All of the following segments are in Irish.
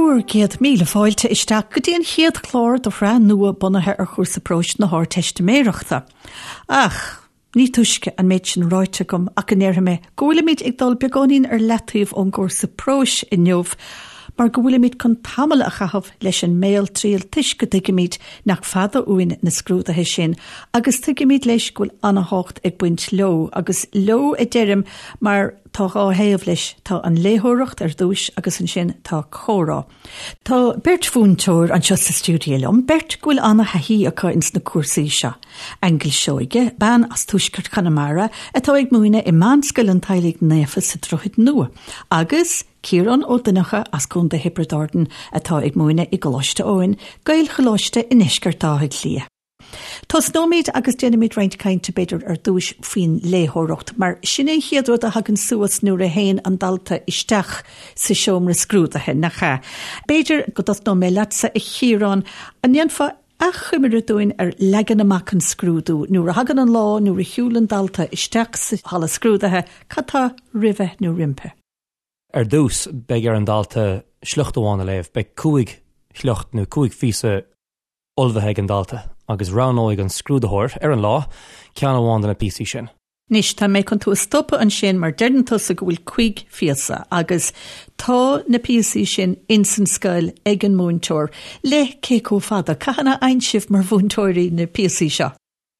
Bhur gcéad míle fáilte isteach go dtí an chéad chlár de shraith nua bunaithe ar chúrsa próis na hArdteistiméireachta. Ach, ní túisce an méid sin ráite agam ach go ndéarfaidh mé go bhfuilimid ag dul beagáinín ar leataobh ón gcúrsa próis inniu mar go bhfuilimid chun tamall a chaitheamh leis an mbéaltriail toisc go dtuigimid nach fada uainn na scrúduithe sin agus tuigimid leis go bhfuil an-thábhacht ag baint leo agus leo a deirim mar Tá dhá thaobh leis, tá an léitheoireacht ar dtúis agus ansin tá comhrá. Tá beirt mhúinteoir anseo sa stiúideo liom, beirt go bhfuil an-thaithí acu ins na cúrsaí seo. Aingeal Seoige, bean as tuaisceart Chonamara atá ag múineadh i Meánscoil an Teaghlaigh Naofa sa Droichead Nua, agus Ciarán Ó Donnchadha as Contae Thiobraid Árann atá ag múineadh i gColáiste Eoin, Gaelcholáiste i ndeisceart Átha Cliath. Tosnóimid agus déanfaimid roinnt cainte b'fhéidir ar dtúis faoin léitheoireacht, mar sin é an chéad rud a thagann suas nuair a théann an dalta isteach sa seomra scrúdaithe, nach ea? B'fhéidir go dtosnóidh mé leatsa, a Chiaráin, an ndéanfá achoimre dúinn ar leagan amach an scrúdú? Nuair a thagann an lá, nuair a shiúlann dalta isteach sa halla scrúdaithe, cad tá roimhe nó roimpi? Ar dtús, beidh ar an dalta sliocht amháin a léamh. Beidh cúig shliocht nó cúig phíosa ullmhaithe ag an dalta agus roghnóidh an scrúdaitheoir, ar an lá, ceann amháin de na píosaí sin. Anois, tá mé chun tú a stopadh ansin mar deireann tusa go bhfuil cuig phíosa agus tá na píosaí sin ins an scoil ag an múinteoir le cé chomh fada? Cathain a fhaigheann sibh mar mhúinteoirí na píosaí seo?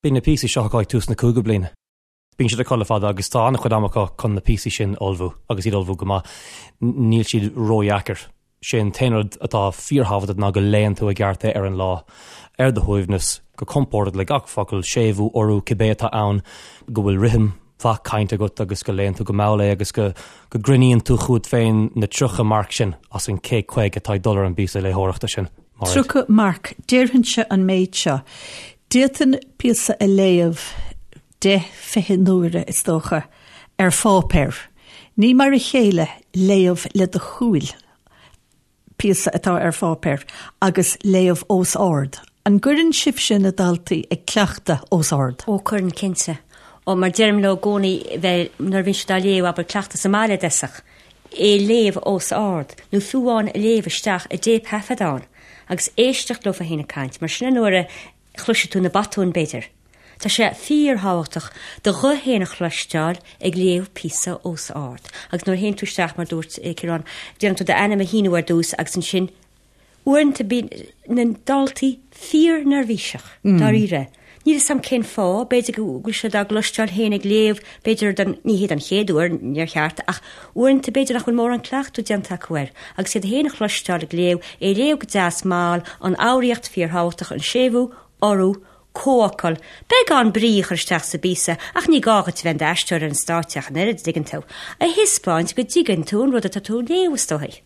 Bíonn na píosaí seo acu ag tús na cúigiú bliana. Bíonn siad acu le fada agus tá an-chuid ama acu chun na píosaí sin a ullmhú agus iad a ullmhú go maith. Níl siad ródheacair. Sé an t-aon rud atá fíorthábhachtach ná go léann tú i gceart é ar an lá, ar do shuaimhneas, go compordach le gach focal, séimhiú, urú, cibé atá ann, go bhfuil rithim mhaith cainte agat agus go léann tú go mall é agus go go gcruinníonn tú chugat féin na 30 marc sin as an 150 atá ag dul ar an bpíosa léitheoireachta sin. Mairéad. 30 marc. Déarfainnse an méid seo. D'fhéadfainn píosa a léamh deich, 20 n-uaire, is dócha, ar pháipéar. Ní mar a chéile léamh le do shúil píosa atá ar pháipéar agus léamh os ard. An gcuireann sibhse na daltaí ag cleachtadh os ard? Ó, cuireann, cinnte. Ó, mar deirim leo i gcónaí bheith, nuair a bhíonn siad á léamh, abair, cleachtadh sa mbaile i dtosach, é a léamh os ard, nó fiú amháin a léamh isteach i dtéipthaifeadán agus éisteacht leofa féin ag caint, mar sin an uair a chloisfidh tú na botúin, b'fhéidir. Tá sé fíorthábhachtach do ghuth féin a chloisteáil ag léamh píosa os ard. Agus nuair a théann tú isteach, mar a dúirt Ciarán, déanann tú d'ainm a shíniú ar dtús agus ansin, uaireanta bíonn na daltaí fíorneirbhíseach, dáiríre. Níl 'fhios a'm cén fáth, b'fhéidir go bhfuil siad á gcloisteáil féin ag léamh, b'fhéidir don, ní hé don chéad uair, níor cheart, ach uaireanta b'fhéidir nach bhfuil mórán cleachtadh déanta acu air. Agus iad féin a chloisteáil ag léamh, é a léamh go deas mall, an fhoghraíocht fíorthábhachtach, an séimhiú, urú, comhfhocal, beagán brí a chur isteach sa bpíosa, ach ní gá dhuit a bheith in d'aisteoir ar an stáitse ach an oiread, dtuigeann tú, a thaispeáint go dtuigeann tú an rud atá tú a léamh, is dóigh.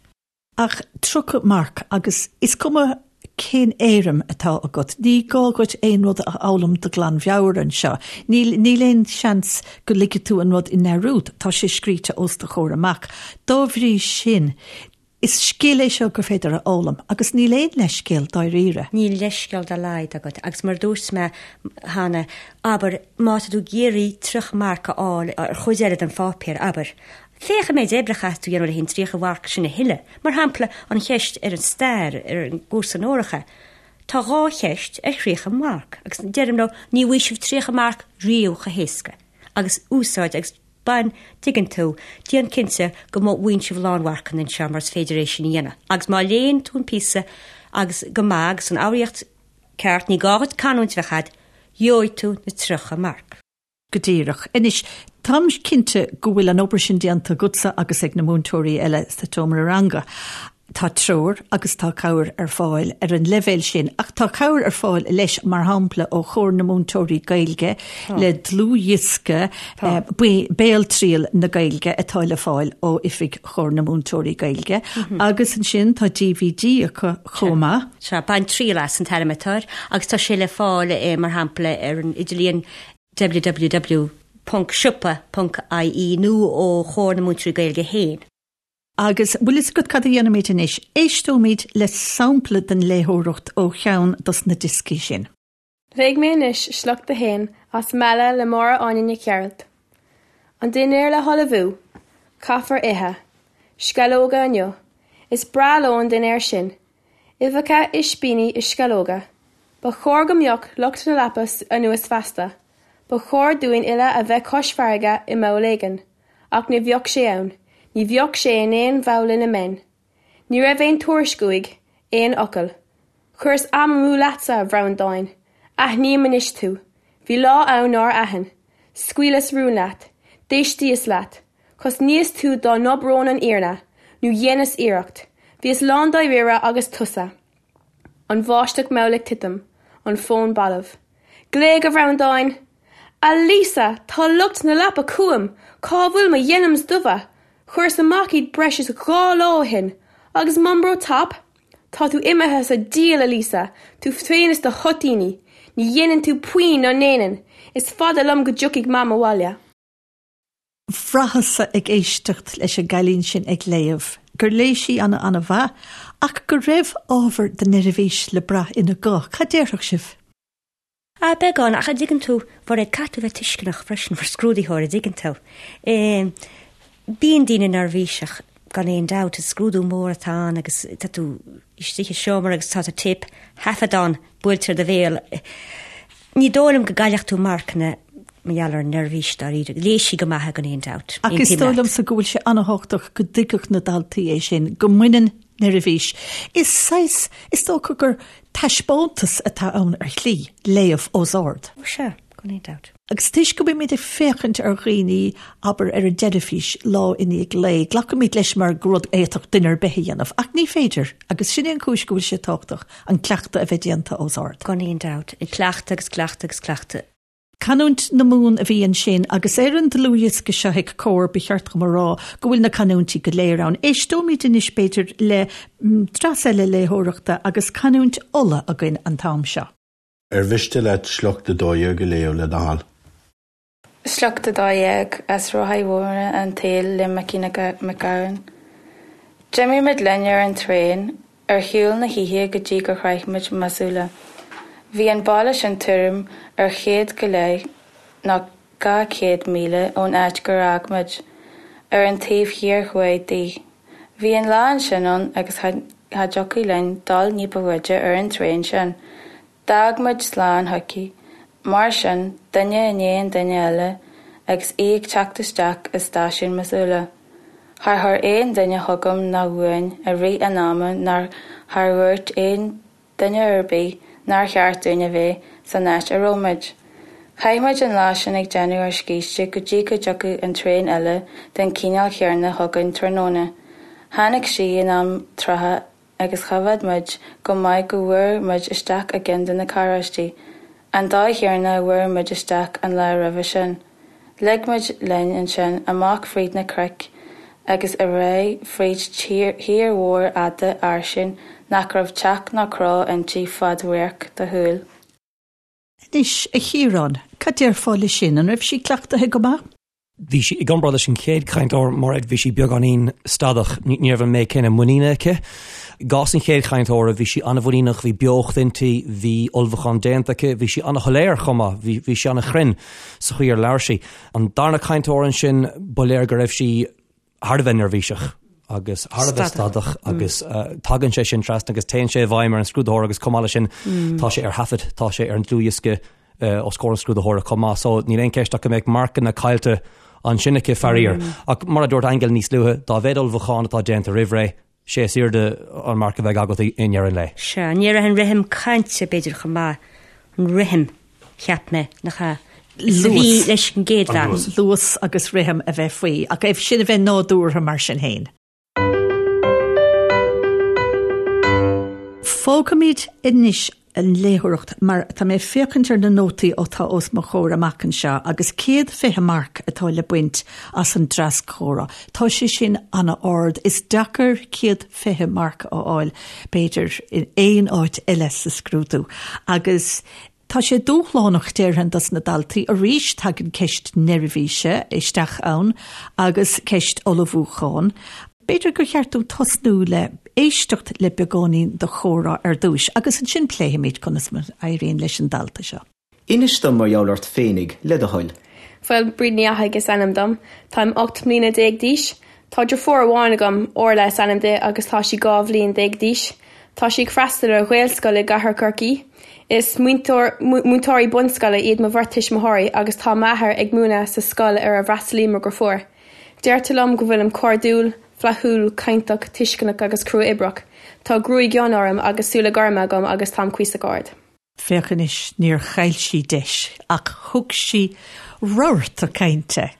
Ach 30 marc, agus is cuma cén éirim atá agat, ní gá dhuit aon rud a fhoghlaim de ghlanmheabhair anseo. Níl, níl aon seans go ligfidh tú an rud i ndearúd, tá sé scríte os do chomhair amach. Dá bhrí sin, Is scil é seo gur féidir a fhoghlaim, agus níl aon leithscéal dáiríre. Níl leithscéal dá laghad agat, agus mar a dúirt mé cheana, abair, má tá tú ag iarraidh 30 marc a fháil ar chuid eile den pháipéar, abair, féach an méid oibre a chaithfidh tú a dhéanamh le an 30 mharc sin a thuilleadh. Mar shampla, an cheist ar an stair, ar an gcúrsa onóracha, tá dhá cheist ar 30 marc, agus deirim leo, ní bhfaighidh sibh 30 marc riamh chomh héasca, agus úsáid agus. Bain, dtuigeann tú, déan cinnte go bhfaigheann sibh lánmharcanna anseo mar is féidir é sin a dhéanamh. Agus má léann tú an píosa agus go maith agus an fhoghraíocht ceart, ní gá dhuit canúint a bheith agat, gheobhaidh tú na 30 marc. Go díreach. Anois, táim cinnte go bhfuil an obair sin déanta agatsa agus ag na múinteoirí eile sa tseomra ranga. Tá treoir agus tá cabhair ar fáil ar an leibhéal sin, ach tá cabhair ar fáil leis, mar shampla, ó Chomhar na Múinteoirí Gaeilge le dlúthdhiosca Béaltriail na Gaeilge atá le fáil ó oifig Chomhar na Múinteoirí Gaeilge, agus ansin tá DVD acu chomh maith. Sea, Bain Triail As an t-ainm atá air, agus tá sé le fáil, mar shampla, ar an idirlíon www.siopa.ie nó ó Chomhar na Múinteoirí Gaeilge féin. Agus bhfuil fhios agat cad a dhéanfaimid anois? Éisteoimid le sampla den léitheoireacht ó cheann dos na dioscaí sin. Léifidh mé anois sliocht a haon as Meala le Máire Áine Nic Gearailt. An dinnéar le hullmhú. Caithfear ithe. Sceallóga inniu. Is breá leo an dinnéar sin. Uibheacha, ispíní is sceallóga. Ba chóir go mbeadh lucht na leapa anuas feasta. Ba chóir dúinn uile a bheith cois farraige i mball éigin. Ach ní bheadh sé ann. Ní bheadh sé in aon bhall ina mbeinn. Ní raibh aon tuairisc uaidh, aon fhocal. Chuireas am amú leatsa, a Bhreandáin. Aithním anois tú. Bhí lá ann nár aithin. Scaoileas rún leat. D'éistíos leat. Chosnaíos tú dá n-abróinn an fhírinne, nó dheineas iarracht. Bhíos lándáiríre agus tusa. An bháisteach mhall ag titim, an fón balbh. Glaoigh, a Bhreandáin! A Lisa, tá lucht na leapa chugam! Cá bhfuil mo dhenims dubha? Chuireas amach iad breis is 2 lá ó shin. Agus Marlboro Top? Tá tú imithe sa diabhal, a Lisa, tú féin is do thoitíní. Ní dhéanann tú puinn ná ndéanann. Is fada liom go dtiocfaidh Mam abhaile. Bhraitheas-sa ag éisteacht leis an gcailín sin ag léamh gur léigh sí ana ana-mhaith ach go raibh ábhar de neirbhís le brath ina guth. Cad déarfadh sibh? Ah, beagán, ach a dtuigeann tú, Mhairéad, caithfidh tú bheith tuisceanach freisin mar scrúdaitheoir, a dtuigeann tú. Bíonn daoine neirbhíseach gan aon dabht, is scrúdú mór atá ann agus tá tú istigh i seomra agus tá téip thaifeadán buailte ar do bhéal. Ní dóigh liom go gcaillfeadh tú marcanna mar gheall ar neirbhís dáiríre. Léigh sí go maith gan aon dabht. Ach is dóigh liomsa go bhfuil sé an-thábhachtach go dtuigfeadh na daltaí é sin, go mbaineann neirbhís. Is saghas, is dócha gur taispeántas atá ann ar shlí, léamh os ard. Ó sea, gan aon dabht. Agus toisc go mbímid ag féachaint ar dhaoine, abair, ar an dteilifís lá i ndiaidh lae, glacaimid leis mar gur rud a fhéadfadh duine ar bith a dhéanamh. Ach ní féidir, agus sin é an chúis go bhfuil sé tábhachtach an cleachtadh a bheith déanta os ard. Gan aon dabht. Cleachtadh agus cleachtadh agus cleachtadh. Canúint na Mumhan a bhí ansin, agus ar an dlúthdhiosca seo ag Comhar, ba cheart dom a rá go bhfuil na canúintí go léir ann. Éisteoimid anois, b'fhéidir, le dreas eile léitheoireachta agus canúint Uladh againn an t-am seo. Ar mhiste leat sliocht 12 a léamh le do thoil? Sliocht 12 as Rothaí Mhóra an tSaoil le Micí Mac Gabhann. D'imigh muid linn ar an traein ar shiúl na hoíche go dtí gur shroich muid Missoula. Bhí an baile sin tuairim ar chéad go leith nó 200 míle ón áit gur fhág muid, ar an taobh thiar thuaidh di. Bhí an lá ansin ann agus cha dtiocfadh linn dul ní ba bhfaide ar an traein sin. D'fhág muid slán chuici, mar sin, duine i ndiaidh an duine eile, agus í ag teacht isteach i stáisiún Missoula. Char chuir aon duine chugam ná uainn i rith an ama ná char dhúirt aon duine ar bith nár cheart dúinn a bheith san áit a raibh muid. Chaith muid an lá sin ag déanamh ár scíste go dtí go dtiocfadh an traein eile den chineál chéanna chugainn tráthnóna. Tháinig sí in am trátha agus choimhéad muid go maith go bhfuair muid isteach i gceann de na carráistí, an dóigh chéanna a bhfuair muid isteach an lá roimhe sin. Lig muid linn ansin amach fríd na cnoic agus ar aghaidh fríd thír mhór fhada fhairsing nach raibh teach ná cró inti fad radharc do shúl. Anois, a Chiaráin, cad déarfá le sin? An raibh sí cleachtaithe go maith? Bhí sí, i gcomparáid leis an chéad chainteoir, Mairéad, bhí sí beagáinín stadach. Ní raibh an méid céanna muiníne aici. I gcás an chéad chainteora, bhí sí an-mhuiníneach, bhí beocht inti, bhí ullmhúchán déanta aici, bhí sí an-shoiléir chomh maith, bhí, bhí sí an-chruinn sa chaoi ar labhair sí. An darna cainteoir ansin, ba léir go raibh sí thar a bheith neirbhíseach agus thar a bheith stadach agus tagann sé sin trasna agus téann sé i bhfeidhm ar an scrúdaitheoir agus chomh maith leis sin tá sé ar thaifead, tá sé ar an dlúthdhiosca os comhair an scrúdaitheora chomh maith. So níl aon cheist ach go mbeadh marcanna caillte ansin aici faraor. Ach mar a dúirt Aingeal níos luaithe, dá mhéad ullmhúchán atá déanta roimh ré, sé is airde an marc a bheidh agat i ndeireadh an lae. Sea, ní raibh an rithim cainte, b'fhéidir, chomh maith, an rithim, cheap mé, nach ea, is a bhí leis an gcéad bhean. Luas agus rithim a bheith faoi, ach é sin a bheith nádúrtha mar sin féin. Fágfaimid anois an léitheoireacht mar tá mé ag féachaint ar na nótaí atá os mo chomhair amach anseo agus 120 marc atá le baint as an dreas comhrá. Tá sé sin an-ard. Is deacair 120 marc a fháil, b'fhéidir, in aon áit eile sa scrúdú. Agus Tá sé dúshlánach, déarfainn, dos na daltaí. Arís, tagann ceist neirbhíse isteach ann agus ceist ullmhúcháin. B'fhéidir gur cheart dúinn tosnú le éisteacht le beagáinín de chomhrá ar dtúis agus ansin pléifimid conas mar a éiríonn leis an dalta seo. Inis dom mar gheall ort féinig, le do thoil. Bhuel, Bríd Ní Fhathaigh is ainm dom. Táim 18 mbliana d'aois. Tá deirfiúr amháin agam, Orla is ainm di agus tá sí 12 bhliain d'aois. Tá sí ag freastal ar Ghaelscoil i gCathair Chorcaí. Is múinteoirí bunscoile iad mo bheirt tuismitheoirí agus tá m'athair ag múineadh sa scoil ar a bhfreastalaíonn mo dheirfiúr. Deirtear liom go bhfuilim cairdiúil, flaithiúil, cainteach, tuisceanach agus crua-oibreach. Tá gruaig fhionn orm agus súile gorma agam agus táim cuíosach ard. Féach anois, níor chaill sí deis ach thug sí rabharta cainte.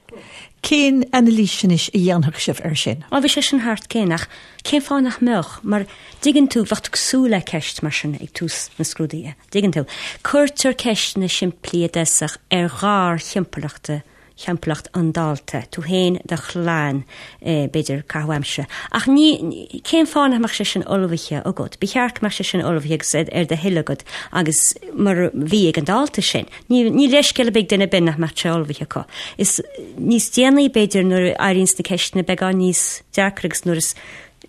Cén anailís anois a dhéanfadh sibh air sin? Á, bhí sé sin thart cén, ach cén fáth nach mbeadh? Mar, dtuigeann tú, bheadh tú ag súil le ceist mar sin ag tús na scrúduithe, dtuigeann tú. Cuirtear ceisteanna simplí i dtosach ar gharthimpeallachta thimpeallacht an dalta, tú féin, do chlann, b'fhéidir, caitheamh aimsire. Ach ní, cén fáth nach mbeadh sé sin ullmhaithe agat? Ba cheart go mbeadh sé sin ullmhaithe agus ar do thoil agat agus mar a bhí ag an dalta sin. Ní, ní leithscéal ar bith ag duine ar bith nach mbeadh sé ullmhaithe acu. Is níos déanaí, b'fhéidir, nuair a éiríonns na ceisteanna beagán níos deacra agus nuair is,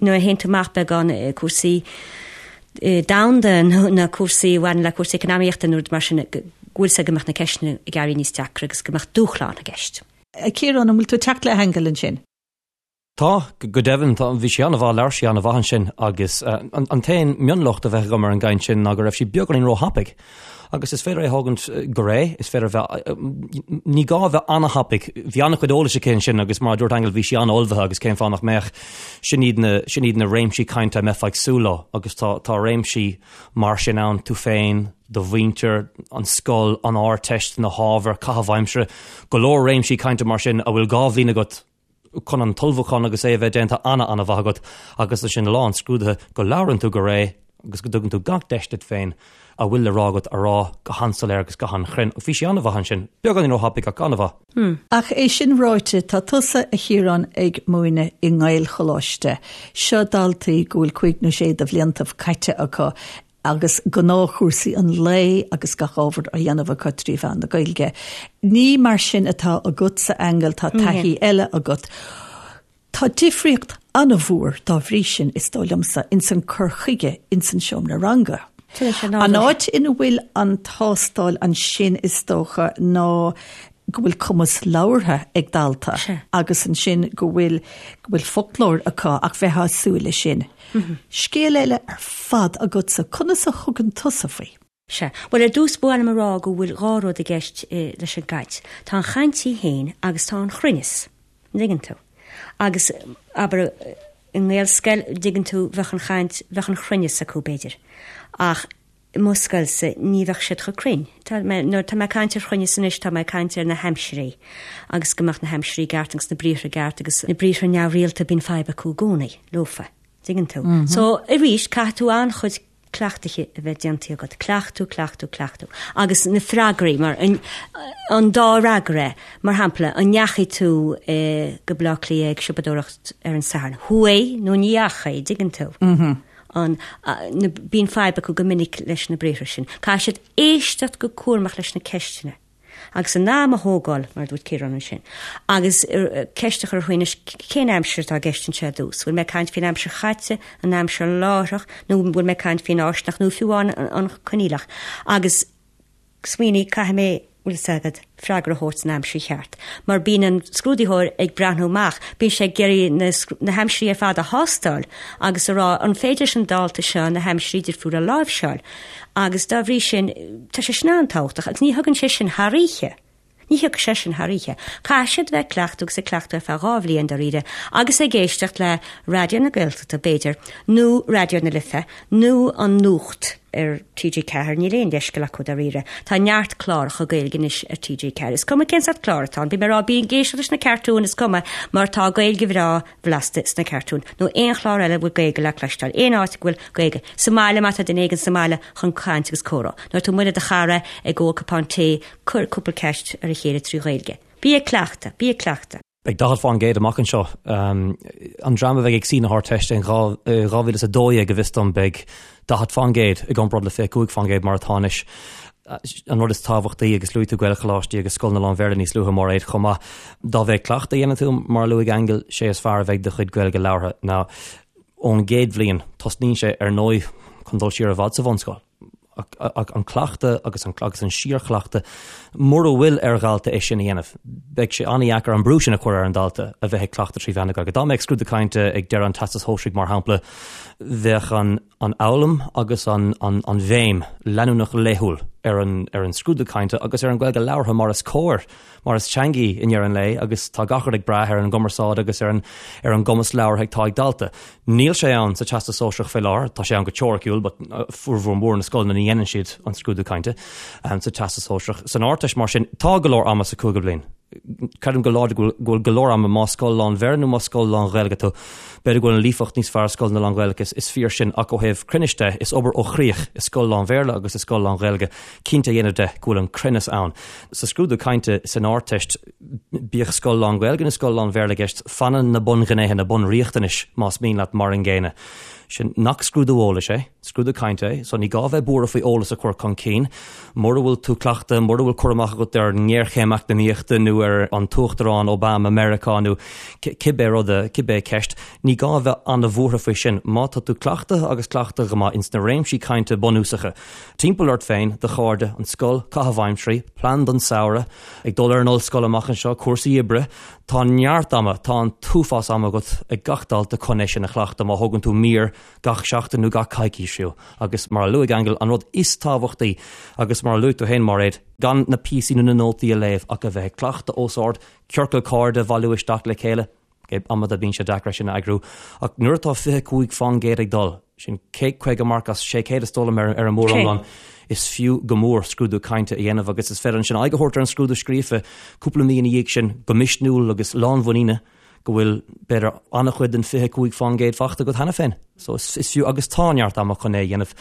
nuair a théann tú amach beagán i cúrsaí domhanda nó na cúrsaí a bhaineann le cúrsaí eacnamaíochta nó rud mar sin, go bhfuil sé go mbeadh na ceisteanna ag éirí níos deacra agus go mbeadh dúshlán i gceist. A Chiaráin, an bhfuil tú ag teacht le hAingeal ansin? Tá, go deimhin. Tá, bhí sí an-mhaith, labhair sí an-mhaith ansin agus an t-aon mionlocht a bheadh agam ar an gcaint sin ná go raibh sí beagáinín róthapaidh. Agus is féidir é a thógaint go réidh, is féidir a bheith, ní gá a bheith an-thapaidh. Bhí an-chuid eolais aici ansin agus mar a dúirt Aingeal, bhí sí an-ullmhaithe agus cén fáth nach mbeadh? Sin iad na, sin iad na réimsí cainte a mbeifeá ag súil leo agus tá, tá réimsí mar sin ann, tú féin, do mhuintir, an scoil, an Ardteist, na hábhair, caitheamh aimsire, go leor réimsí cainte mar sin a bhfuil dhá bhliain agat chun an t-ullmhúchán agus é a bheith déanta ana-ana-mhaith agat agus ansin lá an scrúdaithe go labhrann tú go réidh agus go dtugann tú gach deis duit féin a bhfuil le rá agat a rá go han-soiléir agus go han-chruinn. Bhí sí an-mhaith ansin. Beagáinín róthapaidh ach an-mhaith. Ach é sin ráite, tá tusa, a Chiaráin, ag múineadh i nGaelcholáiste. Seo daltaí go bhfuil cúig nó sé de bhliantaibh caite acu agus gnáthchúrsaí an lae agus gach ábhar á dhéanamh acu trí mheán na Gaeilge. Ní mar sin atá agatsa, Aingeal, tá taithí eile agat. Tá difríocht an-mhór dá bhrí sin, is dóigh liomsa, ins an cur chuige ins an seomra ranga. An áit ina bhfuil an tástáil ansin, is dócha, ná go bhfuil cumas labhartha ag dalta agus ansin go bhfuil go bhfuil foclóir acu ach bheifeá ag súil leis sin. Scéal eile ar fad agatsa, conas a thugann tusa faoi? Sea. Bhuel, ar dtús ba mhaith liom a rá go bhfuil dhá rud i gceist leis an gcaint. Tá an chaint í féin agus tá an chruinneas. An dtuigeann tú? Agus, abair, i nGaelscoil, dtuigeann tú, bheadh an chaint, bheadh an chruinneas acu, b'fhéidir. Ach i mo scoilse, ní bheadh siad chomh cruinn. Tá mé, nuair atá mé ag caint ar chruinneas anois, tá mé ag caint ar na haimsirí agus go mbeadh na haimsirí i gceart agus na briathra i gceart agus na briathra neamhrialta, bíonn fadhb acu i gcónaí leofa. Dtuigeann tú? So, arís, caithfidh tú an-chuid cleachtaithe a bheith déanta agat. Cleachtú, cleachtú, cleachtú. Agus na freagraí, mar an, an dá fhreagra, mar shampla, an ndeachaigh tú go Baile Átha Cliath ag siopadóireacht ar an Satharn? Chuaigh nó ní dheachaigh, dtuigeann tú? An, na, bíonn fadhb acu go minic leis na briathra sin. Caithfidh siad éisteacht go cúramach leis na ceisteanna. Agus a n-am a thógáil, mar a dúirt Ciarán ansin. Agus ceist a chur orthu anois, cén aimsir atá i gceist anseo ar dtús? Bhfuil mé ag caint faoin aimsir chaite, an aimsir láithreach, nó bhfuil mé ag caint faoin fháistineach, nó fiú amháin an coinníollach? Agus smaoinigh, caithfidh mé, bhfuil fhios agat, freagra a thabhairt san aimsir cheart. Mar bíonn an scrúdaitheoir ag breathnú amach, bíonn sé ag iarraidh na, na haimsirí ar fad a thástáil agus a rá, an féidir leis an dalta seo na haimsirí difriúla a láimhseáil? Agus dá bhrí sin, tá sé sin an-tábhachtach agus ní thagann sé sin thar oíche. Ní thiocfaidh sé sin thar oíche. Caithfidh siad bheith ag cleachtadh agus ag cleachtadh ar feadh dhá bhliain dáiríre agus ag éisteacht le Raidió na Gaeltachta, b'fhéidir, nó Raidió na Life, nó an Nuacht ar TG4, níl aon leithscéal acu dáiríre. Tá neart cláracha Gaeilge anois ar TG4. Is cuma cén sórt clár atá ann, bím ag rá bí ag éisteacht leis na cartúin, is cuma, mar tá Gaeilge bhreá bhlasta sna cartúin, nó aon chlár eile a bhfuil Gaeilge le cloisteáil, aon áit go bhfuil Gaeilge. Sa mbaile, má tá duine éigin sa mbaile chun caint agus comhrá. Nuair atá tú amuigh le do chara ag ól cupán tae, cuir cúpla ceist ar a chéile trí Ghaeilge. Bí ag cleachtadh, bí ag cleachtadh. Beidh 40% amach anseo. An dream a bheidh ag suí na hArdteiste in 2012, go bhfios dom, beidh 40% i gcomparáid le 25% mar atá anois. An rud is tábhachtaí, agus luaigh tú Gaelcholáistí agus scoileanna lán-Bhéarla níos luaithe, Máiréad, chomh maith, dá mhéad cleachtadh a dhéanann tú, mar a luaigh Aingeal, sé is fearr a bheidh do chuid Gaeilge labhartha. Now, ón gcéad bhliain, tosnaíonn sé, ar ndóigh, chun dul siar i bhfad sa bhunscoil. Ach an cleachtadh agus an agus an síorchleachtadh, mura bhfuil ar dhalta é sin a dhéanamh, beidh sé an-dheacair an brú sin a chur ar an dalta a bheith ag cleachtadh 3 mheán na Gaeilge. Dá mbeadh scrúdú cainte ag deireadh an Teastais Shóisearaigh, mar shampla, bheadh an an fhoghlaim agus an an an bhéim leanúnach laethúil ar an ar an scrúdú cainte agus ar an Ghaeilge labhartha mar is cóir. mar is teanga í i ndeireadh an lae agus tá gach rud ag brath ar an gcumarsáid agus ar an ar an gcumas labhartha atá ag dalta. Níl sé ann sa Teastas Sóisearach fé láthair, tá sé ann go teoiriciúil but formhór mór na scoileanna ní dhéanann siad an scrúdú cainte sa Teastas Sóisearach. San Ardteist mar sin, tá go leor ama sa cúigiú bliain. Creidim go láidir go bhfuil go leor ama más scoil lán-Bhéarla nó más scoil lán-Ghaeilge tú. B'fhéidir go bhfuil an líofacht níos fearr i scoileanna lán-Ghaeilge, is fíor sin, ach ó thaobh cruinnis de, is obair ó chríoch i scoil lán-Bhéarla agus i scoil lán-Ghaeilge cinnte a dhéanamh de go bhfuil an cruinneas ann. Sa scrúdú cainte san Ardteist, bíodh scoil lán-Ghaeilge nó scoil lán-Bhéarla i gceist, fanann na bunghnéithe, na bunriachtanais, más mian leat, mar an gcéanna. Sin nach scrúdú eolais é, scrúdú cainte é, so ní gá bheith buartha faoi eolas a chur chun cinn. Mura bhfuil tú cleachta, mura bhfuil cur amach agat ar an ngéarchéim eacnamaíochta nó ar an tUachtarán Obama Meiriceá nó cibé rud, cibé ceist, ní gá bheith an-bhuartha faoi sin. Má tá tú cleachta agus cleachta go maith ins na réimsí cainte bunúsacha, Timpeall ort féin, do chairde, an scoil, caitheamh aimsirí, plean don samhradh, ag dul ar an ollscoil amach anseo, cúrsaí oibre, tá neart ama, tá an t-uafás ama agat ag gach dalta chun é sin a chleachtadh má thógann tú mír gach seachtain nó gach coicís fiú. Agus mar a luaigh Aingeal, an rud is tábhachtaí, agus mar a luaigh tú féin Máiréad, gan na píosaí nó na nótaí a léamh ach a bheith ag cleachtadh os ard, ciorcal cairde a bhailiú isteach le chéile, Amanta bíonn sé deacair é sin a eagrú, ach nuair atá 25% ag dul, sin 150 marc as 600 is dóigh liom ar an móriomlán, is fiú go mór scrúdú cainte a dhéanamh agus is féidir ansin aghaidh a thabhairt ar an scrúdú scríofa cúpla mí ina dhiaidh sin go misniúil agus lánmhuiníne go bhfuil b'fhéidir an-chuid den 25% faighte agat cheana féin. So is fiú agus tá neart ama chun é a dhéanamh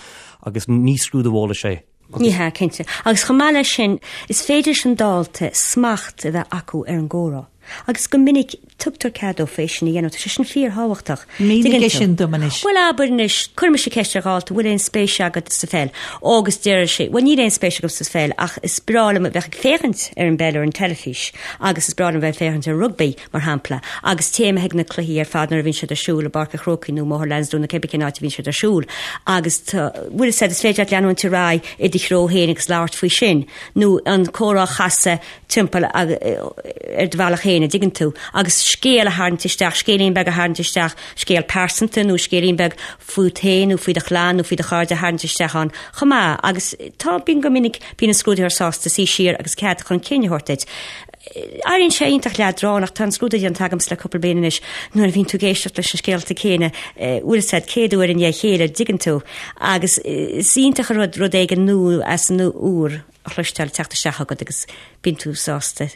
agus ní scrúdú eolais é. Ní hea, cinnte. Agus chomh maith leis sin, is féidir leis an dalta smacht a bheith acu ar an gcomhrá. Agus go minic tugtar cead dófa é sin a dhéanamh. Tá sé sin fíorthábhachtach. Mínigh é sin dom anois. Bhuel, abair anois, cuireann mise ceist ar dhalta, bhfuil aon spéis agat sa pheil? Ó, agus deir sé, bhuel, níl aon spéis agam sa pheil ach is breá liom a bheith ag féachaint ar an bpeil ar an teilifís agus is breá liom a bheith ag féachaint ar rugbaí. mar shampla, agus téim chuig na cluichí ar fad nuair a bhíonn siad ar siúl i bPáirc an Chrócaigh nó i mBóthar Lansdowne nó cébí cén áit a bhíonn siad ar siúl agus tá, bhfuil fhios agat, is féidir leat leanúint ar aghaidh i do threo féin agus labhairt faoi sin nó an comhrá a chasadh timpeall ar do bhealach féin, an dtuigeann tú, agus scéal a tharraingt isteach, scéilín beag a tharraingt isteach, scéal pearsanta nó scéilín beag fút féin nó faoi do chlann nó faoi do chairde a tharraingt isteach ann chomh maith agus tá, bíonn go minic, bíonn an scrúdaitheoir sásta suí siar agus cead chun cinn a thabhairt duit. Éiríonn sé iontach leadránach, tá an scrúdú déanta agamsa le cúpla bliain anois, nuair a bhíonn tú ag éisteacht leis na scéalta céanna, bhfuil fhios agat, 100 uair i ndiaidh a chéile, dtuigeann tú, agus is iontach an rud rud éigin nua as an úr a chloisteáil ag teacht isteach agat agus bíonn tú sásta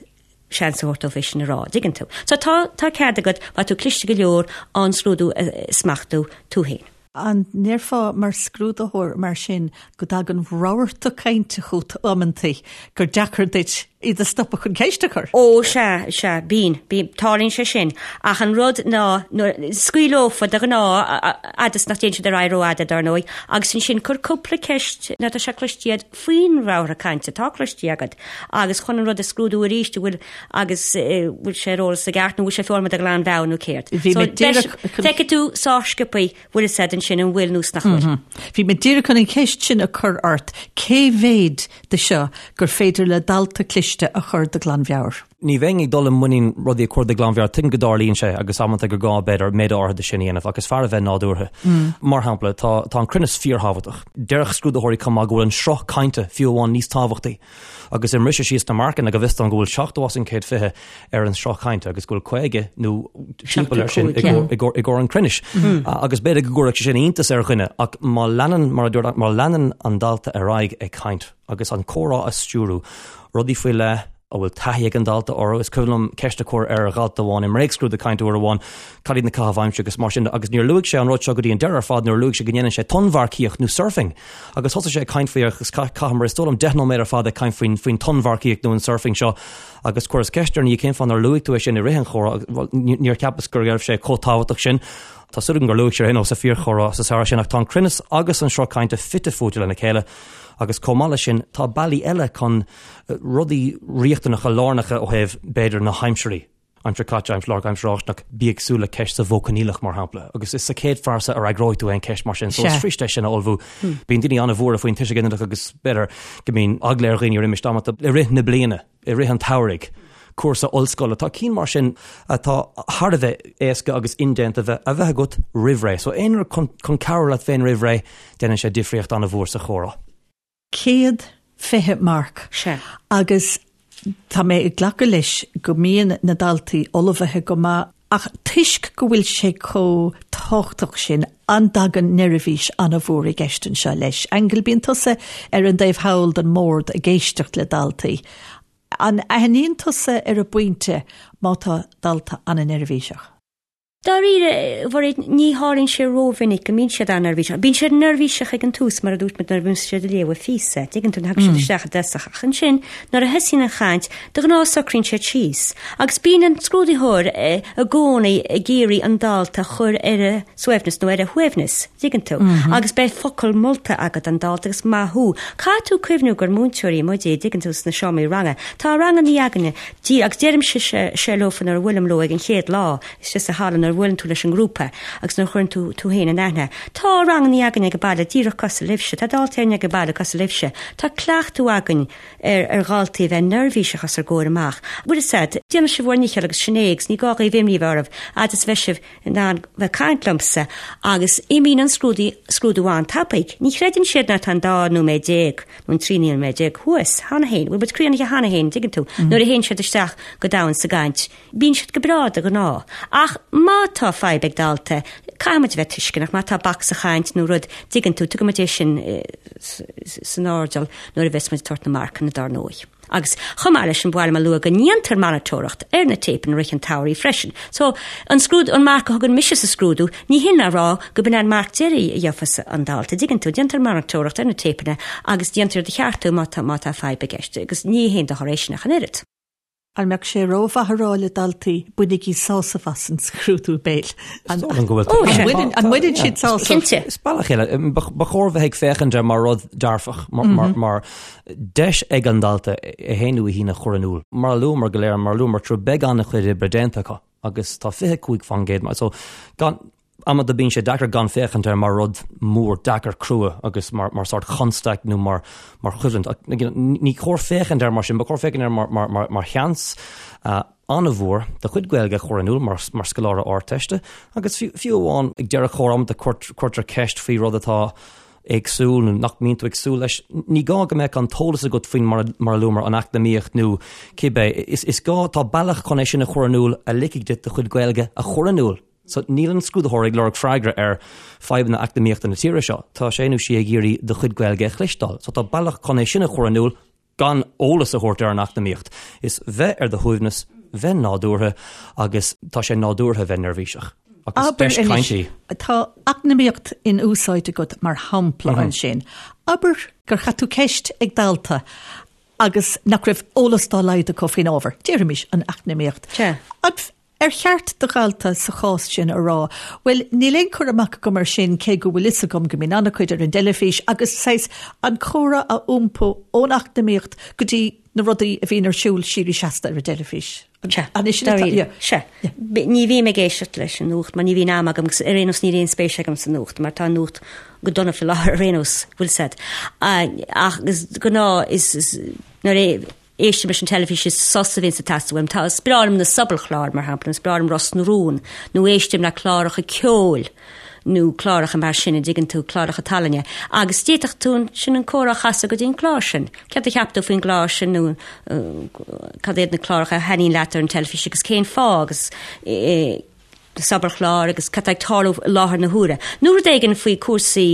seans a thabhairt dóibh é sin a rá, dtuigeann tú. So tá, tá cead agat, má tá tú cliste go leor, an scrúdú a smachtú tú féin. An ndéarfá mar scrúdaitheoir mar sin go dtagann rabharta cainte chugat amantaí gur deacair duit iad a stopadh chun ceist a chur? Ó, sea, sea, bíonn, bíonn, tarlaíonn sé sin. Ach an rud ná, nuair, scaoil leofa de ghnáth, fhad is nach dtéann siad ar aghaidh rófhada, dar ndóigh, agus ansin cuir cúpla ceist, nó tá sé cloiste agat faoin rabharta cainte atá cloiste agat, agus chun an rud a scrúdú arís, an bhfuil, agus bhfuil sé ar eolas i gceart nó bhfuil sé foghlamtha de ghlanmheabhair nó céard. Bhí mé díreach Feicfidh tú sách sciobtha bhfuil fhios agat ansin an bhfuil nó nach bhfuil. Bhí mé díreach chun an cheist sin a chur ort, cé mhéid de seo gur féidir le dalta cliste a chur de ghlanmheabhair? Ní bheinn ag dul i muinín rudaí a chur de ghlanmheabhair, tuigim go dtarlaíonn sé agus amanta gur gá b'fhéidir méid áirithe de sin a dhéanamh ach is fearr a bheith nádúrtha. Mar shampla, tá tá an cruinneas fíorthábhachtach. Déarfadh scrúdaitheoirí chomh maith go bhfuil an sruth cainte fiú amháin níos tábhachtaí. Agus i mbriseadh síos na marcanna, go bhfios dom go bhfuil 70 as an 120 ar an sruth cainte agus go bhfuil 50 nó timpeall air sin i gcomhair an chruinnis. Agus b'fhéidir go gcuirfeadh sé sin iontas ar dhuine ach má leanann, mar a dúirt, má leanann an dalta ar aghaidh ag caint agus an comhrá a stiúrú, rudaí faoi leith a bhfuil taithí ag an dalta orthu. Is cuimhin liom ceist a chur ar dhalta amháin i mbréagscrúdú cainte uair amháin, cad iad na caithimh aimsire agus mar sin de agus níor luaigh sé an rud seo go dtí an deireadh ar fad nuair a luaigh sé go ndéanann sé tonnmharcaíocht nó surfing. Agus thosaigh sé ag caint faoi agus chaitheamar is dóigh liom 10 nóiméad ar fad ag caint faoin faoin tonnmharcaíocht nó an surfing seo agus chuireas ceist air ina dhiaidh cén fáth nár luaigh tú é sin i rith an chomhrá agus bhuel níor cheapas go raibh sé chomh tábhachtach sin. Tá súil agam gur luaigh sé ar aon nós sa fíorchomhrá sa samhradh sin ach tá an cruinneas agus an sruth cainte fite fuaite lena chéile agus chomh maith leis sin tá bealaí eile chun rudaí riachtanacha lárnacha ó thaobh b'fhéidir na haimsirí. Aimsir chaite, aimsir láithreach, aimsir fháistineach, bí ag súil le ceist sa mhodh coinníollach, mar shampla, agus is sa chéad phearsa a fhreagróidh tú aon cheist mar sin, so is fuirist é sin a ullmhú. Bíonn daoine an-bhuartha faoin tuiseal ginideach agus b'fhéidir go mbíonn eagla ar dhaoine roimis amanta i rith na bliana, i rith an tsamhraidh, cúrsa ollscoile, tá cinn mar sin atá thar a bheith éasca agus indéanta bheith a bheith agat roimh ré. So aon rud chun cabhrú leat féin roimh ré, déanann sé difríocht an-mhór sa chomhrá. 120 marc. Sea. Agus tá mé ag glacadh leis go mbíonn na daltaí ullmhaithe go maith ach toisc go bhfuil sé chomh tábhachtach sin, an dtagann neirbhís an-mhór i gceist anseo leis? Aingeal, bíonn tusa ar an dtaobh thall den mbord ag éisteacht le daltaí. An aithníonn tusa ar an bpointe má tá dalta an-neirbhíseach? Dáiríre, a Mhairéad, ní tharlaíonn sé rómhinic go mbíonn siad an-neirbhíseach. Bíonn siad neirbhíseach ag an tús, mar a dúirt muid, nuair a bhíonn siad ag léamh a phíosa. Tuigeann tú, nuair a thagann siad isteach i dtosach. Ach ansin, nuair a thosaíonn an chaint, de ghnáth socraíonn siad síos. Agus bíonn an scrúdaitheoir i gcónaí ag iarraidh an dalta a chur ar a suaimhneas nó ar a shuaimhneas, tuigeann tú. Agus beidh focal molta agat don dalta agus maith thú. Caithfidh tú cuimhniú gur múinteoirí muid, tuigeann tú, sna seomraí ranga. Tá rangannaí againne, agus deirimse seo leofa nuair a bhuailim leo ag an chéad lá, istigh sa halla nuair a bhuaileann tú leis an ngrúpa agus nuair a chuireann tú tú féin in aithne. Tá rangannaí againn ag an baile díreach cosúil libhse, tá daltaí againn ag an baile cosúil libhse. Tá cleachtadh againn ar ar dhaltaí a bheith neirbhíseach os ár gcomhair amach. Bhfuil fhios a'd, déanfaidh sibh bhur ndícheall agus sin é agus ní gá dhaoibh imní a bheith oraibh fhad is a bheidh sibh in ann bheith caint liomsa agus imíonn an scrúdú scrúdú an-tapaidh. Ní chreideann siad ná tá an dá nóiméad déag nó an 13 nóiméad thuas cheana féin, bhfuil muid críochnaithe cheana féin, dtuigeann tú, nuair a théann siad isteach go domhain sa gcaint. Bíonn siad go breá de ghnáth. Ach má tá fadhb ag dalta, caithfidh muid a bheith tuisceanach, má tá bac sa chaint nó rud, dtuigeann tú, tugann muid é sin san airdeall nuair a bheas muid ag tabhairt na marcanna dár ndóigh. Agus chomh maith leis sin, ba mhaith liom a lua go ndéantar monatóireacht ar na téipeanna i rith an tsamhraidh freisin. So, an scrúdú, an marc a thugann mise sa scrúdú, ní hin a rá go b'in an marc deiridh a gheofas an dalta, dtuigeann tú, déantar monatóireacht ar na téipeanna agus déantar iad a cheartú má tá, má tá fadhb i gceist. Agus ní haon dochar é sin ach an oiread. An mbeadh sé rómhaith a rá le daltaí, bainigí sásamh as an scrúdú béil? An mbaineann siad sásamh? Cinnte. Is bealach eile. Ba chóir bheith ag féachaint air mar rud dearfach, mar deis ag an dalta é féin nó í féin a chur in iúl. Mar a luamar go léir, mar a luamar tráth, beidh an-chuid oibre déanta acu agus tá 25% mar so gan Amanta bíonn sé deacair gan féachaint air mar rud mór deacair crua agus mar mar sórt chonstaic nó mar mar choimhlint. Ach ní chóir féachaint air mar sin, ba chóir féachaint air mar mar mar mar sheans an-mhór do chuid Gaeilge a chur in iúl mar mar scoláire Ardteiste agus fiú fiú amháin ag deireadh comhrá amanta cuirtear ceist faoi rud atá éagsúil nó nach mbíonn tú ag súil leis. Ní gá go mbeadh an t-eolas agat faoin mar mar a luamar an eacnamaíocht nó cibé. Is is gá tá bealach chun é sin a chur in iúl a ligfidh duit do chuid Gaeilge a chur in iúl. So, níl an scrúdaitheoir ag lorg freagra ar fadhbanna eacnamaíochta na tíre seo. Tá sé nó sí ag iarraidh do chuid Gaeilge a chloisteáil. So, tá bealach chun é sin a chur in iúl gan eolas a thabhairt ar an eacnamaíocht. Is bheith ar do shuaimhneas, bheith nádúrtha agus tá sé nádúrtha bheith neirbhíseach. Agus Abair deis anois, cainte í. tá eacnamaíocht in úsáid agat mar shampla ansin. Abair gur chaith tú ceist ag dalta agus nach raibh eolas dá laghad acu faoin ábhar, déarfaimis an eacnamaíocht. Sea. An Ar cheart do dhalta sa chás sin a rá, bhuel, níl aon chur amach agam air sin cé go bhfuil fhios agam go mbíonn an-chuid ar an dteilifís agus saghas an comhrá a iompú ón eacnamaíocht go dtí na rudaí a bhíonn ar siúl síoraí seasta ar an dteilifís. Sea, An é sin atá, dáiríre. yeah. Sea. Ní bhím ag éisteacht leis an nuacht mar ní bhíonn am agam agus ar aon nós níl aon spéis agam sa nuacht mar tá an nuacht go dona faoi láthair ar aon nós, bhfuil 'fhios a'd. Ach is gnáth is nuair a Éistim leis an teilifís is sos a bhíonns ag teastáil uaim. Tá, is breá liom na sobalchláir, mar shampla, is breá liom Ros na Rún, nó éistim le cláracha ceoil nó cláracha mar sin, an dtuigeann tú, cláracha tallainne. Agus d'fhéadfadh tú ansin an comhrá a chasadh go dtí an clár sin. Céard a cheap tú faoin gclár sin nó cad iad na cláracha a thaitníonn leat ar an teilifís agus cén fáth agus sobalchláir agus cad tá ag tarlú i láthair na huaire. Nó rud éigin faoi cúrsaí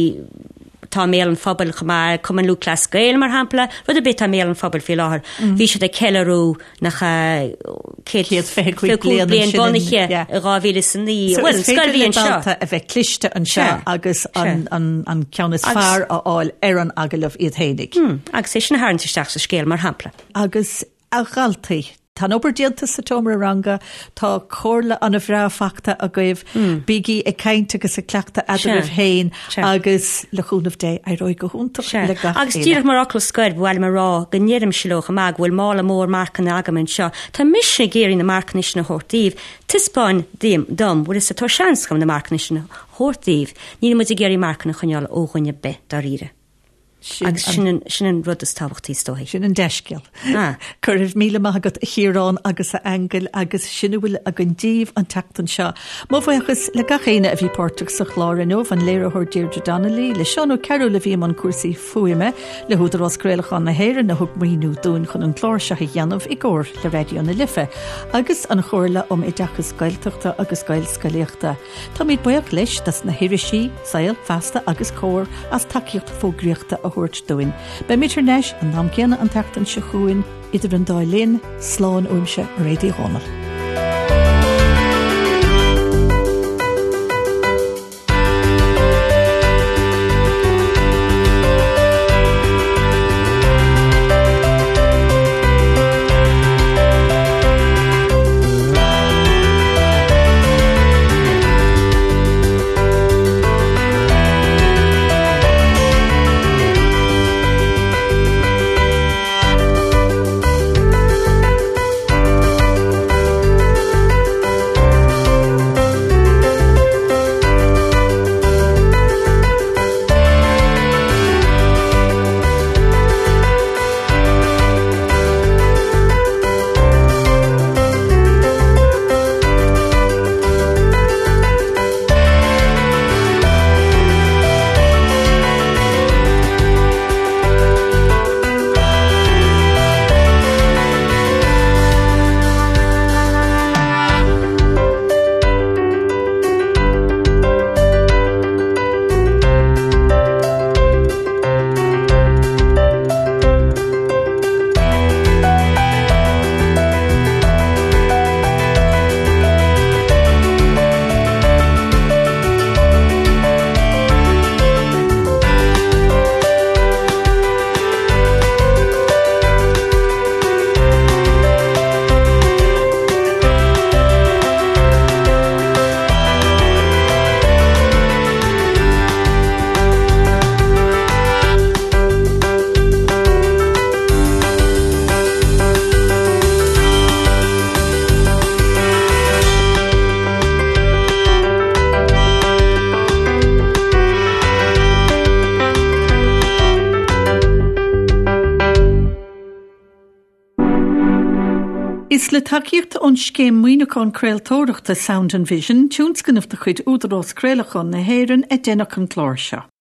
atá i mbéal an phobail chomh maith, Cumann Lúthchleas Gael mar shampla, rud ar bith atá i mbéal an phobail faoi láthair. Bhí siad ag ceiliúradh nach ea 125 bliain bliain bunaithe i 2009. So Bhuel, is féidir scoil le bhí anseo. dalta a bheith cliste anseo Sea. agus Sea. an, an, an ceann is Agus- fearr a fháil ar an agallamh iad fhéinig. Agus é sin a tharraingt isteach sa scéal mar shampla. Agus a dhaltaí. Tá an obair déanta sa tseomra ranga, tá comhairle an-bhreá fachta agaibh, bígí ag caint agus ag cleachtadh eadraibh féin agus le cúnamh Dé éireoidh go hiontach le gach Agus díreach mar fhocal scoir, ba mhaith liom a rá go ndeirimse leo chomh maith go bhfuil mála mór marcanna agam anseo. Tá mise ag iarraidh na marcanna sin a thabhairt daoibh. Taispeáin dom, bhfuil fhios agat, tá seans agam na marcanna sin a thabhairt daoibh. Níl muid ag iarraidh marcanna a choinneáil ó dhuine ar bith, dáiríre. Agus sin an, sin an rud is tábhachtaí is dóichí. Sin an dea-scéal. Ah. Go raibh míle maith agat a Chiaráin agus a Aingil agus sin a bhfuil againn daoibh an tseachtain seo. Mo bhuíochas le gach éinne a bhí páirteach sa chlár inniu, an léiritheoir Deirdre Donnelly, le Seán Ó Cearúil a bhí i mbun cúrsaí fuaime, le hÚdarás Craolacháin na hÉireann a thug maoiniú dúinn chun an clár seo a dhéanamh i gcomhar le Raidió na Life, agus an Chomhairle um Oideachas Gaeltachta agus Gaelscolaíochta. Táimid buíoch leis dos na hirisí, Saol, Feasta agus Comhar as tacaíocht fógraíochta a thabhairt dúinn. Beimid thar n-ais an t-am céanna an tseachtain seo chugainn, idir an dá linn, slán uaimse, Mairéad Uí Dhomhnaill. Is le tacaíocht ón Scéim Maoiniúcháin Craoltóireachta Sound and Vision, tionscnamh de chuid Údarás Craolacháin na hÉireann, a deineadh an clár seo.